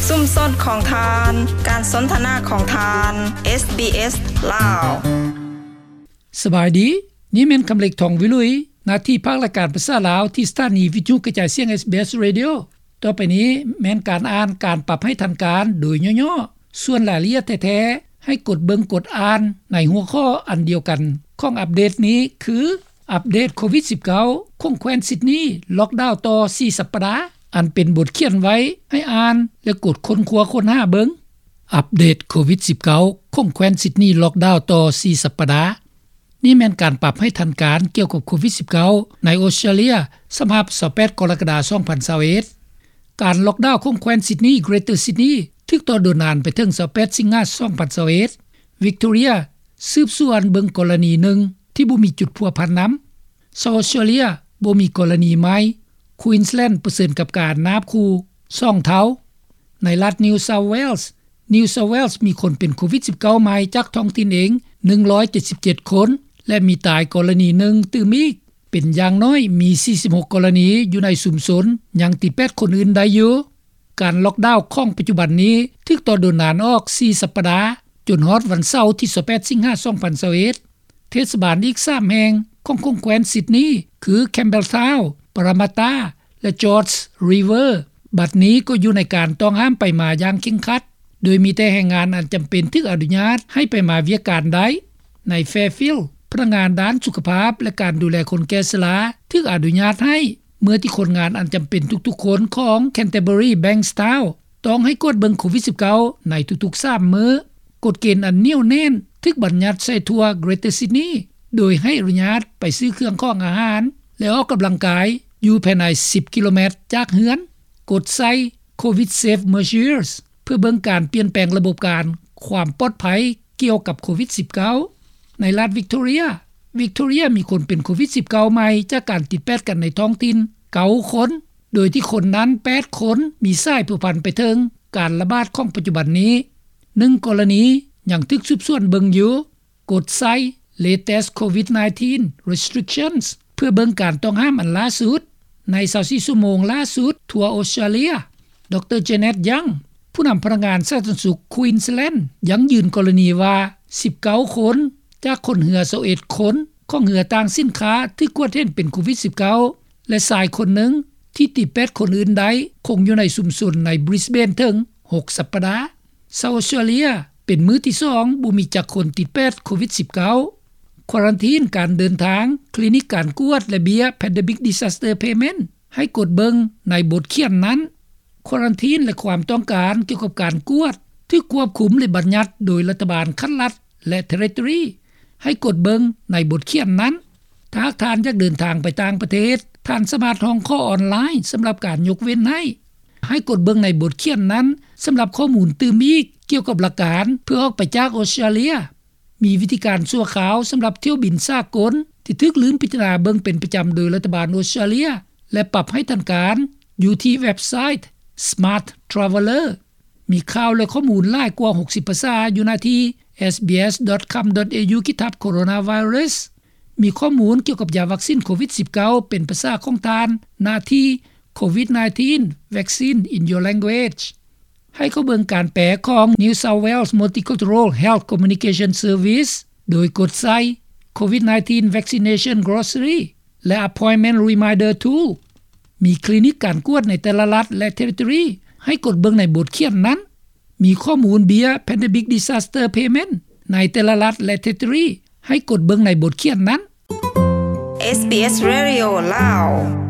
ຊຸມຊົນຂອງທ່ານ, ການສົນທະນາຂອງທ່ານ, ເອສບີເອສ ລາວ. ສະບາຍດີ, ນີ້ແມ່ນຄຳເລັກ ທອງວິລຸຍ, ໜ້າທີ່ພາກລາຍການພາສາລາວ ທີ່ສະຖານີວິທະຍຸກະຈາຍສຽງ ເອສບີເອສ Radio. ຕໍ່ໄປນີ້ແມ່ນການອ່ານການປັບໃຫ້ທັນການໂດຍຫຍໍ້ໆ. ສ່ວນລາຍລະອຽດແທ້ໆ ໃຫ້ກົດເບິ່ງກົດອ່ານໃນຫົວຂໍ້ອັນດຽວກັນຂອງອັບເດດນີ້ ຄື ອັບເດດໂຄວິດສິບເກົ້າ ຂອງແຂວນຊິດນີ ລັອກດາວຕໍ່ສີ່ສັບປະດາ, ອັນເປັນບົດຂຽນໄວ້ໃຫ້ອ່ານ ແລະ ກົດຄົ້ນຄວ້າຄົ້ນຫາເບິ່ງ. ອັບເດດໂຄວິດສິບເກົ້າ ຂອງແຂວນຊິດນີ ລັອກດາວຕໍ່ສີ່ສັບປະດາ. ນີ້ແມ່ນການປັບໃຫ້ທັນການກ່ຽວກັບໂຄວິດສິບເກົ້າ ໃນອົດສະຕຣາເລຍ ສຳລັບຊາວແປດກໍລະກະດາ ສອງພັນຊາວເອັດ. ການລັອກດາວຂອງແຂວນຊິດນີ Greater Sydney ຖືກຕໍ່ໂດນນານໄປເຖິງຊາວແປດສິງຫາ ສອງພັນຊາວເອັດ. Victoria ສືບສວນເບິ່ງກໍລະນີໜຶ່ງທີ່ບໍ່ມີຈຸດພົວພັນນຳ. South Australia ບໍ່ມີກໍລະນີໃໝ່. Queensland ປະເຊີນກັບການນາບຂູ່ສອງເທົ່າ. ໃນລັດ New South Wales, New South Wales ມີຄົນເປັນໂຄວິດສິບເກົ້າໃໝ່ຈາກທ້ອງຖິ່ນເອງ ໜຶ່ງຮ້ອຍເຈັດສິບເຈັດຄົນ ແລະ ມີຕາຍກໍລະນີໜຶ່ງຕື່ມອີກ. ເປັນຢ່າງໜ້ອຍມີສີ່ສິບຫົກກໍລະນີຢູ່ໃນຊຸມຊົນ ຍັງຕິດແປດຄົນອື່ນໄດ້ຢູ່. ການລັອກດາວຂອງປັດຈຸບັນນີ້ຖືກຕໍ່ໂດນນານອອກສີ່ສັບປະດາ ຈົນຮອດວັນເສົາທີຊາວແປດສິງຫາ ສອງພັນຊາວເອັດ. ເທດສະບານອີກສາມແຫ່ງຂອງຂົງແຂວນຊິດນີ ຄື Campbelltown, Parramatta ແລະ Georges River ບັດນີ້ກໍຢູ່ໃນການຕ້ອງຫ້າມໄປມາຢ່າງເຄັ່ງຄັດ, ໂດຍມີແຕ່ແຮງງານອັນຈຳເປັນຖືກອະນຸຍາດໃຫ້ໄປມາວຽກການໄດ້. ໃນ Fairfield ພະນັກງານດ້ານສຸຂະພາບ ແລະ ການດູແລຄົນແກ່ຊະລາຖືກອະນຸຍາດໃຫ້ ເມື່ອທີ່ຄົນງານອັນຈຳເປັນທຸກໆຄົນຂອງ Canterbury Bankstown ຕ້ອງໃຫ້ກວດເບິ່ງໂຄວິດສິບເກົ້າໃນທຸກໆສາມມື້. ກົດເກນອັນໜຽວແໜ້ນຖືກບັນຍັດໃສ່ທົ່ວ Greater Sydney ໂດຍໃຫ້ອະນຸຍາດໄປຊື້ເຄື່ອງຂອງອາຫານ ແລະ ອອກກຳລັງກາຍຢູ່ພາຍໃນສິບກິໂລແມັດຈາກເຮືອນ, ກົດໃສ່ Covid Safe Measures ເພື່ອເບິ່ງການປ່ຽນແປງລະບົບການຄວາມປອດໄພກ່ຽວກັບໂຄວິດສິບເກົ້າ. ໃນລັດ Victoria, Victoria ມີຄົນເປັນໂຄວິດສິບເກົ້າໃໝ່ຈາກການຕິດແປດກັນໃນທ້ອງຖິ່ນເກົ້າຄົນ, ໂດຍທີ່ຄົນນັ້ນແປດຄົນມີສາຍພົວພັນໄປເຖິງການລະບາດຂອງປັດຈຸບັນນີ້. ໜຶ່ງກໍລະນີຍັງຖືກສືບສວນເບິ່ງຢູ່. ກົດໃສ່ Latest Covid nineteen Restrictions ເພື່ອເບິ່ງການຕ້ອງຫ້າມອັນລ່າສຸດໃນຊາວສີ່ຊົ່ວໂມງລ່າສຸດທົ່ວອົດສະຕຣາເລຍ. ດຣ Janet Young ຜູ້ນຳພະນັກງານສາທາລະນະສຸກ Queensland ຢັ້ງຢືນກໍລະນີວ່າ ສິບເກົ້າຄົນຈາກຄົນເຮືອຊາວເອັດຄົນຂອງເຮືອຕ່າງສິນຄ້າຖືກກວດເຫັນເປັນໂຄວິດສິບເກົ້າ ແລະ ຊາຍຄົນໜຶ່ງທີ່ຕິດແປດຄົນອື່ນໄດ້ຄົງຢູ່ໃນຊຸມຊົນໃນ Brisbane ເຖິງຫົກສັບປະດາ. ຊາວອົດສະຕຣາເລຍເປັນມື້ທີສອງບໍ່ມີຈັກຄົນຕິດແປດໂຄວິດສິບເກົ້າ. ຄວາຣັນທີນການເດີນທາງ, ຄລີນິກການກວດ ແລະ ເບ້ຍ Pandemic Disaster Payment ໃຫ້ກົດເບິ່ງໃນບົດຂຽນນັ້ນ. ຄວາຣັນທີນ ແລະ ຄວາມຕ້ອງການກ່ຽວກັບການກວດຖືກຄວບຄຸມ ແລະ ບັນຍັດໂດຍລັດຖະບານຂັ້ນລັດ ແລະ Territory ໃຫ້ກົດເບິ່ງໃນບົດຂຽນນັ້ນ. ຖ້າຫາກທ່ານຢາກເດີນທາງໄປຕ່າງປະເທດ, ທ່ານສາມາດຮ້ອງຂໍອອນລາຍສຳລັບການຍົກເວັ້ນໃຫ້. ໃຫ້ກົດເບິ່ງໃນບົດຂຽນນັ້ນສຳລັບຂໍ້ມູນຕື່ມອີກກ່ຽວກັບຫຼັກການເພື່ອອອກໄປຈາກອົດສະຕຣາເລຍ. ມີວິທີການຊົ່ວຄາວສຳລັບຖ້ຽວບິນສາກົນທີ່ຖືກລືມພິຈາລະນາເບິ່ງເປັນປະຈຳໂດຍລັດຖະບານອົດສະຕຣາເລຍ ແລະ ປັບໃຫ້ທັນການຢູ່ທີ່ເວັບໄຊ Smart Traveller. ມີຂ່າວ ແລະ ຂໍ້ມູນຫຼາຍກວ່າຫົກສິບພາສາຢູ່ໜ້າທີ່ SBS dot com dot au ຂີດທັບ Coronavirus. ມີຂໍ້ມູນກ່ຽວກັບຢາວັກຊິນໂຄວິດສິບເກົ້າເປັນພາສາຂອງທ່ານ ໜ້າທີ່ Covid nineteen Vaccine in Your Language. ໃຫ້ເຂົ້າເບິ່ງການແປຂອງ New South Wales Multicultural Health Communication Service ໂດຍກົດໃສ່ Covid nineteen Vaccination Glossary ແລະ Appointment Reminder Tool. ມີຄລີນິກການກວດໃນແຕ່ລະລັດ ແລະ Territory ໃຫ້ກົດເບິ່ງໃນບົດຂຽນນັ້ນ. ມີຂໍ້ມູນເບ້ຍ Pandemic Disaster Payment ໃນແຕ່ລະລັດ ແລະ Territory ໃຫ້ກົດເບິ່ງໃນບົດຂຽນນັ້ນ. SBS Radio ລາວ.